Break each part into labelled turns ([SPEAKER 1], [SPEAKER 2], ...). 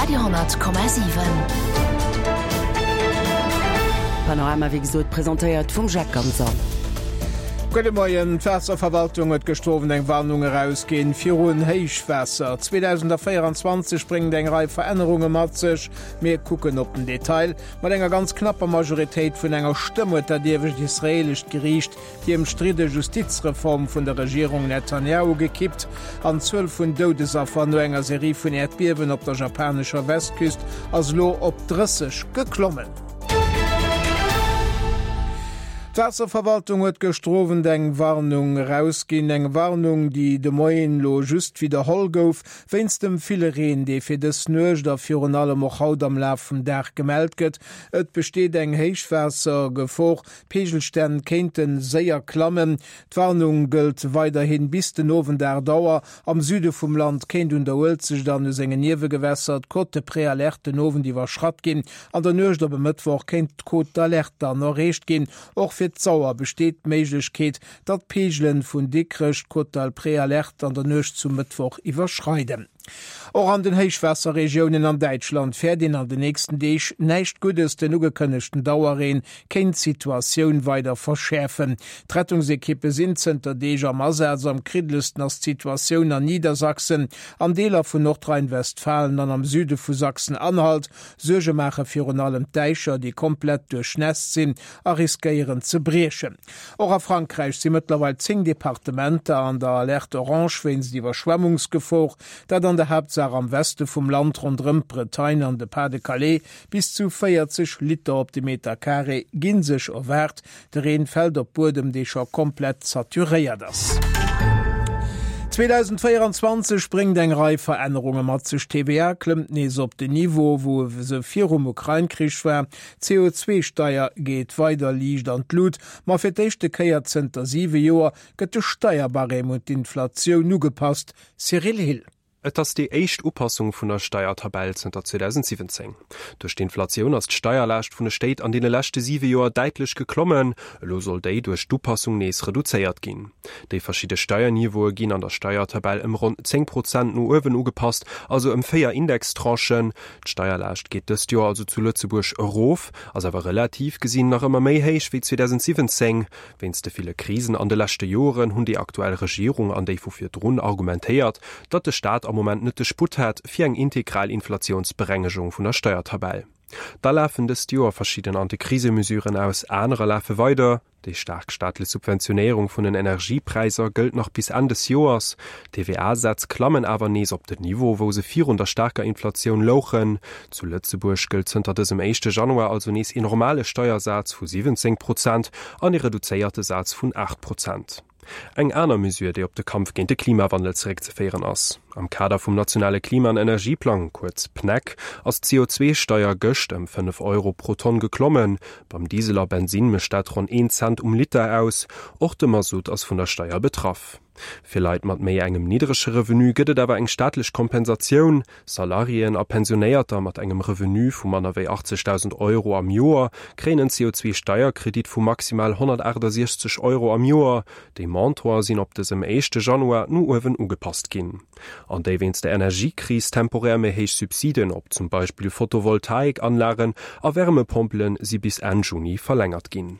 [SPEAKER 1] Radio,7.
[SPEAKER 2] Panorama wéi gesot presentéiert vum Jacques Ganser.
[SPEAKER 3] Gudde Moien. D'Waasserverwaltung huet gëschter Owend eng Warnung erausginn virun Héichwaasser. 2024 bréngt eng Rei Verännerunge mat sech. Mir kucken op den Detail. Mat enger ganz knapper Majoritéit vun enger Stëmm huet dat iewescht israeelescht Geriicht Déi ëmstridde Justizreform vun der Regierung Netanjahu gekippt an d'Zuel vun Doudesaffer no enger Serie vun Äerdbiewen op der japanescher Westküst ass elo op 30 geklommen. D'Waasserverwaltung huet gëschter Owend eng Warnung erausginn. Eng Warnung, déi de Moien elo just widderholl gouf, wéinst dem ville Reen, dee fir dës Nuecht a virun allem och haut am Laf vum Dag gemellt gëtt. Et besteet eng Héichwaassergefor. D'Peegelstänn kéinte séier klammen. D'Warnung gëllt weiderhin bis den Owend 8 Auer. Am Süde vum Land kéint un der Uelzecht an u sengen Niewegewässer d'Cote de Préalerte den Owend iwwerschratt ginn. An der Nuecht op e Mëttwoch kéint d'Cote d'alerte dann erreecht ginn. Och fir d'Sauer besteet d'Méiglechkeet, datt d'Peegelen vun Dikrech d'Cote de Préalerte an der Nuecht zum Mëttwoch iwwerschreiden. Och an den Héichwaasserregiounen an Däitschland fäert een an den nächsten Deeg näischt Guddes. Den ugekënnegten Dauerreen kéint d'Situatioun weider verschäerfen. D'Rettungsekippe sinn zënter Deeg am Asaz. Am kriddelsten ass d'Situatioun an Niedersachsen, an Deeler vun Nordrhein-Westfalen an am Süde vu Sachsen-Anhalt. Suerge maache virun allem d'Däicher, déi komplett duerchnässt sinn a riskéieren ze briechen. Och a Frankräich si mëttlerweil 10 Departementer an der Alerte orange wéinst Iwwerschwemmungsgefor, dat an der Haaptsaach am Weste vum Land ronderëm d'Bretagne an de Pas-de-Calais. Bis zu 40 Liter op de Meter Carré gi sech erwaart. De Reen fält op Buedem, dee scho komplett saturéiert ass. 2024 bréngt eng Rei Verännerunge mat sech. D'TVA klëmmt nees op den Niveau, wou se virum Ukrain-Krich war. D'CO2-Steier geet weider liicht an d'Lut, ma fir d'éischte Kéier zënter siwe Joer gëtt de Steierbarème un d'Inflatioun ugepasst. Cyril Hill.
[SPEAKER 4] Et ass déi éischt Upassung vun der Steiertabell zënter 2017. Duerch d'Inflatioun ass d'Steierlaascht vun de Stéit an deene leschte siwe Joer däitlech geklommen. Elo soll déi duerch d'Upassung nees reduzéiert ginn. Déi verschidde Steierniveaue ginn an der Steiertabell ëm ronn 10 Prozent no uewen ugepasst, also ëm 4 Indextranchen. D'Steierlaascht geet dëst Joer also zu Lëtzebuerg erof, ass awer relativ gesinn nach ëmmer méi héich wéi 2017. Wéinst de ville Krisen an de leschte Joren hunn déi aktuell Regierung an déi vu virdrun argumentéiert, datt de Staat am Moment net de Sputt hätt fir eng integral Inflatiounsberengegung vun der Steiertabell. Da lafen dëst Joer verschidden Antikrisemesuren aus, anerer lafe weider. Déi staark staatlech Subventionéierung vun den Energiepräisser gëllt nach bis Enn des Joers. D'TVA-Sätz klammen awer nees op den Niveau, wou se virun der staarker Inflatioun louchen. Zu Lëtzebuerg gëllt zënter dësem éischte Januar also nees een normale Steiersaz vu 17 Prozent an ee reduzéierte Saz vun 8 Prozent. Eng aner Mesure, déi op de Kampf géint de Klimawandel zeréckzeféieren ass. Am Kader vum nationale Klima an Energieplang, kuerz PNEC, ass d'CO2-Steier gëscht ëm 5 Euro pro Tonn geklommen. Beim Diesel a Bensinn mécht dat ronn een Cent um Liter aus. Och de Masutt ass vun der Steier betraff. Fir Leit mat méi engem niddrege Revenu gëtt et awer eng staatlech Kompensatioun. Salariéen a Pensionéierter mat engem Revenu vu manner wéi 80.000 Euro am Joer kréien en CO2-Steierkredit vu maximal 168 Euro am Joer. Déi Montantë sinn op dësem éischte Januar no uewen ugepasst ginn. An déi wéinst der Energiekris temporär méi héich Subsiden op zum Beispill Photovoltaikanlagen a Wärmepompele si bis Enn Juni verlängert ginn.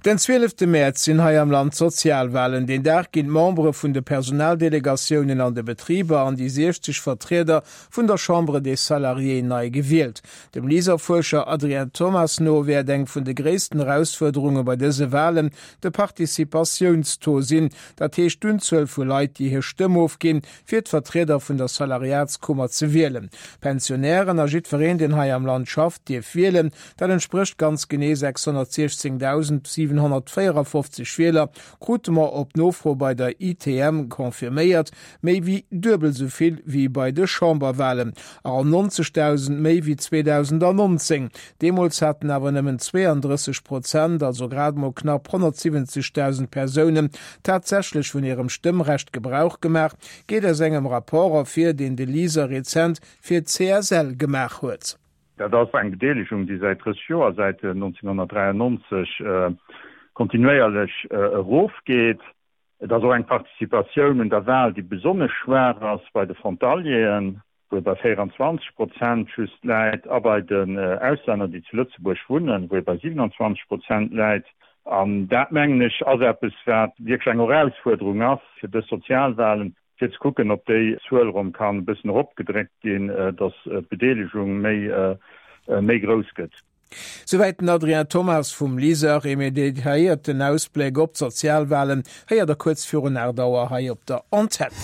[SPEAKER 3] Den zwielefte Mäerz sinn hei am Land d'Sozialwalen. Deen Dag ginn d'Membere vun de Personaldelegatiounen an de Betriber an déi 60 Vertrieder vun der Chambre des Salariés nei gewielt. Dem LISER-Fuerscher Adrien Thomas no wäert eng vun de gréissten Erausfuerderunge bei dëse Walen de Participatiounstaux sinn, dat heescht d'Unzuel vu Leit, déi hir Stëmm ofginn, fir d'Vertrieder vun der Salariatskummer ze wielen. Pensionären a jiddwereen, deen hei am Land schafft, dierf wielen. Dat entsprécht ganz genee 616.754 Wieler, krute mer op Nofro bei der ITM confirméiert, méi wéi duebel esou vill wéi bei de Chamberwalen a ronn 90.000 méi wéi 2019. Deemools haten awer nëmmen 32 Prozent, also grad mol knapp 170.000 Persounen, tatsächlech vun hirem Stëmmrecht Gebrauch gemaach, geet aus engem Rapport ervir, deen de LISER rezent fir d'CSL gemaach huet.
[SPEAKER 5] Dat ass eng Bedeelegung, déi säit 30 Joer, säit 1993, kontinuéierlech erofgeet. Et ass och eng Participatioun un der Wal, déi besonnesch schwaach ass bei de Frontalieren. wou e bei 24 Prozent just läit, a bei den Auslänner, déi zu Lëtzebuerg wunnen, wou e bei 27 Prozent läit. An dat, mengen ech, ass eppes, wat wierklech eng Erausfuerderung ass fir dës Sozialwahlen, fir ze kucken, ob déi Zuel erëm kann e bëssen eropgedréckt ginn, datt d'Bedeelegung méi, méi grouss gëtt.
[SPEAKER 3] Souwäit den Adrien Thomas vum LISER. Ee méi detailléierten Ausbléck op d'Sozialwalen héiert der kuerz virun 8 Auer hei op der Antenn.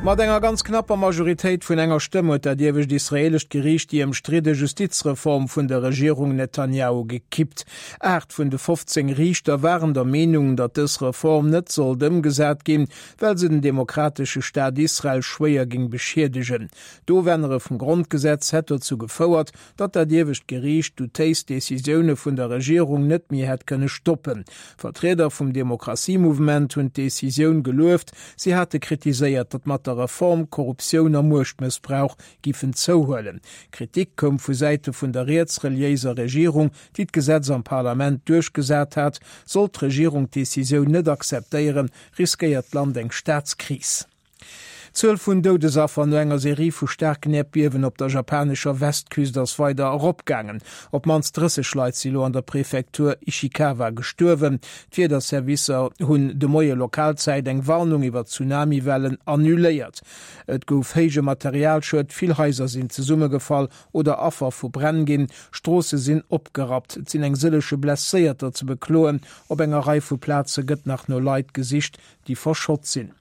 [SPEAKER 3] Mat enger ganz knapper Majoritéit vun enger Stëmm huet dat iewescht israeelescht Geriicht déi ëmstridde Justizreform vun der Regierung Netanjahu gekippt. 8 vun de 15 Riichter waren der Meenung, datt dës Reform net sollt ëmgesat ginn, well se den demokratesche Staat Israel schwéier géing beschiedegen. D'Ofännere vum Grondgesetz hätt dozou gefouert, datt dat iewescht Geriicht doutéis Decisioune vun der Regierung net méi hätt kënne stoppen. Vertrieder vum Demokratiemouvement hunn d'Decisioun gelueft. Si hate kritiséiert, datt mat der Reform Korruptioun a Muechtmëssbrauch giffen zouhuelen. Kritik koum vu Säite vun der rietsreliéiser Regierung, déi d'Gesetz am Parlament duerchgesat hat. Sollt d'Regierung d'Decisioun net akzeptéieren, riskéiert d'Land eng Staatskris. D'Zuel vun Doudesaffer no enger Serie vu staarken Äerdbiewen op der japanescher Westküst ass weider eropgaangen. Op d'mannst 30 Leit si lo an der Prefektur Ishikawa gestuerwen. D'Wiederservicer hunn de Moie Lokalzäit eng Warnung iwwer Tsunamiwellen annuléiert. Et gouf héije Materialschued, vill Haiser sinn zesummegefall oder Affer vu Bränn ginn, Stroosse sinn opgerappt. Et sinn eng sëllege Blesséierter ze bekloen. Op enger Rei vu Plaze gëtt nach no Leit gesicht, déi verschott sinn.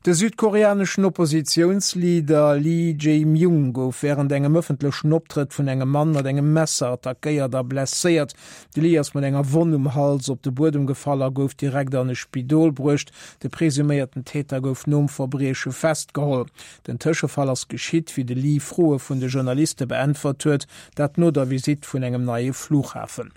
[SPEAKER 3] De südkoreaneschen Oppositiounsleader Lee Jae-myung gouf wärend engem ëffentlechen Optrëtt vun engem Mann mat engem Messer attackéiert a blesséiert. De Lee ass mat enger Wonn um Hals op de Buedem gefall a gouf direkt an e Spidol bruecht. De presuméierten Täter gouf nom Verbrieche festgeholl. Den Tëschefall ass geschitt, wéi de Lee Froe vun de Journaliste beäntwert huet, dat no der Visitt vun engem neie Flughafen.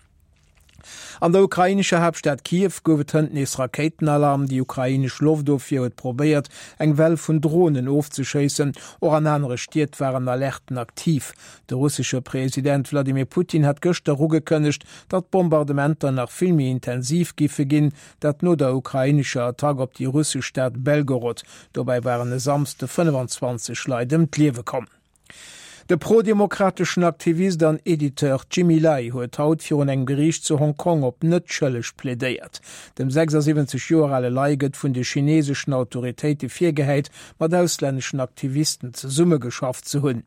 [SPEAKER 3] An der ukrainescher Haaptstad Kiew gouf et hënt nees Rakéitenalarm. Déi ukrainesch Loftofwier huet probéiert, eng Well vun Dronen ofzeschéissen. Och an anere Stied waren Alerten aktiv. De russesche President Wladimir Putin hat gëschter ugekënnegt, datt d'Bombardementer nach vill méi intensiv giffe ginn, dat no der ukrainescher Attack op déi russesch Stad Belgorod. Dobäi waren e Samsde 25 Leit ëm d'Liewe komm. De pro-demokrateschen Aktivist an Editeur Jimmy Lai huet haut virun engem Geriicht zu Hong Kong op net schëlleg plädéiert. Dem 76 Joer ale Lai gëtt vun de chineeseschen Autoritéite virgehäit, mat auslänneschen Aktivisten zesummegeschafft ze hunn.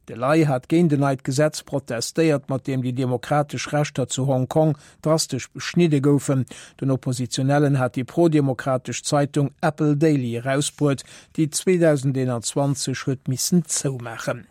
[SPEAKER 3] De Lai hat géint en neit Gesetz protestéiert, mat deem déi demokratesch Rechter zu Hong Kong drastesch beschnidde goufen. Den Oppositionellen hat déi prodemokratesch Zeitung Apple Daily erausbruet, déi 2021 huet missen zoumaachen.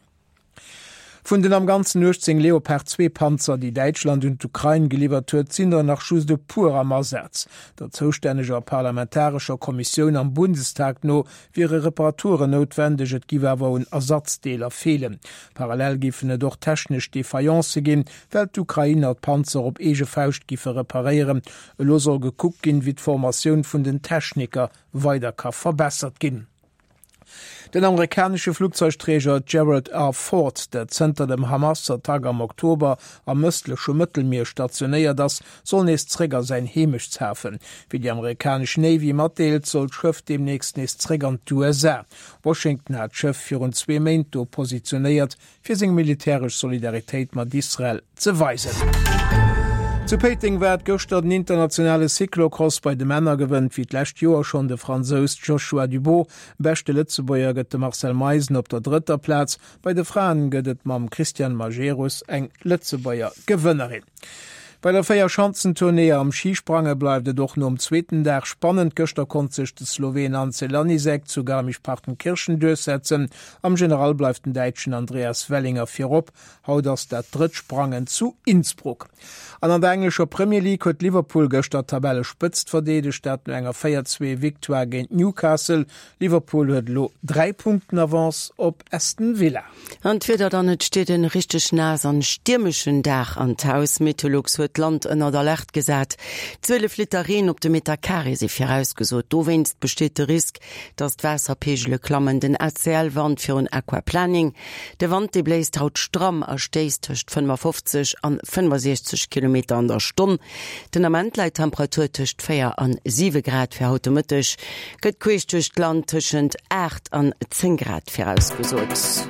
[SPEAKER 3] Vun den am Ganzen 18 Leopard 2 Panzer, déi Däitschland un d'Ukrain geliwwert huet, sinn der nach just e puer am Asaz. Der zoustänneger parlamentarescher Kommissioun am Bundestag no wiere Reparaturen noutwendeg, et giff awer un Ersatzdeeler feelen. Parallel giffen et och technesch Defaillancë ginn, well d'Ukrainer d'Panzer op eege Fauscht giffe reparéieren. Elo soll gekuckt ginn, wéi d'Formatioun vun den Techniker weider ka verbessert ginn. Den amerikanesche Flugzeugträger Gerald R. Ford, der zënter dem Hamas-Attack am Oktober am ëstleche Mëttelmier stationéiert ass, soll nees zréck a säin Heemechtshafen. Wéi déi amerikanesch Navy matdeelt, soll d'Schëff deemnächst nees zréck an d'USA. Washington hat d'Schëff virun zwee Méint do positionéiert, fir seng militäresch Solidaritéit mat Israel ze weisen. Zu Péiteng war et gëschter den internationale Cyclocross bei de Männer. Gewënnt wéi d'lescht Joer schonn de Fransous Joshua Dubot. Beschte Lëtzebuerger gëtt de Marcel Meisen op der drëtter Plaz. Bei de Fraen gëtt et mam Christiane Majerus eng Lëtzebuerger Gewënnerin. Bei der Véierschanzentournée am Schisprange bleift et och nom zweeten Dag spannend. Gëschter konnt sech de Sloween Anze Lanisek zu Garmisch-Partenkirchen duerchsetzen. Am General bleift den Däitschen Andreas Wellinger virop. Haut ass dat drëtt Sprangen zu Innsbruck. An an der englescher Premier League huet Liverpool gëschter d'Tabellespëtzt verdeedegt, dat no enger 4, 2 Victoire géint Newcastle. Liverpool huet elo 3 Punkten Avance op Aston Villa.
[SPEAKER 2] An d'Wieder dann, Et steet en richteg naass an stiermeschen Dag an d'Haus. Meteolux huet. huet d'Land ënnert Alerte gesat. 12 Liter Reen op de Meter Carré si virausgesot. Dowéinst besteet de Risk, datt d'Waasserpeegele klammen. Den ACL warnt virun Aquaplaning. De Wand, dee bléist haut stramm a stéisst tëscht 55 an 65 Kilometer an der Stonn. Den Ament läit d'Temperatur tëscht 4 an 7 Grad. Fir haut de Mëtteg gëtt queesch duerch d'Land tëschent 8 an 10 Grad virausgesot.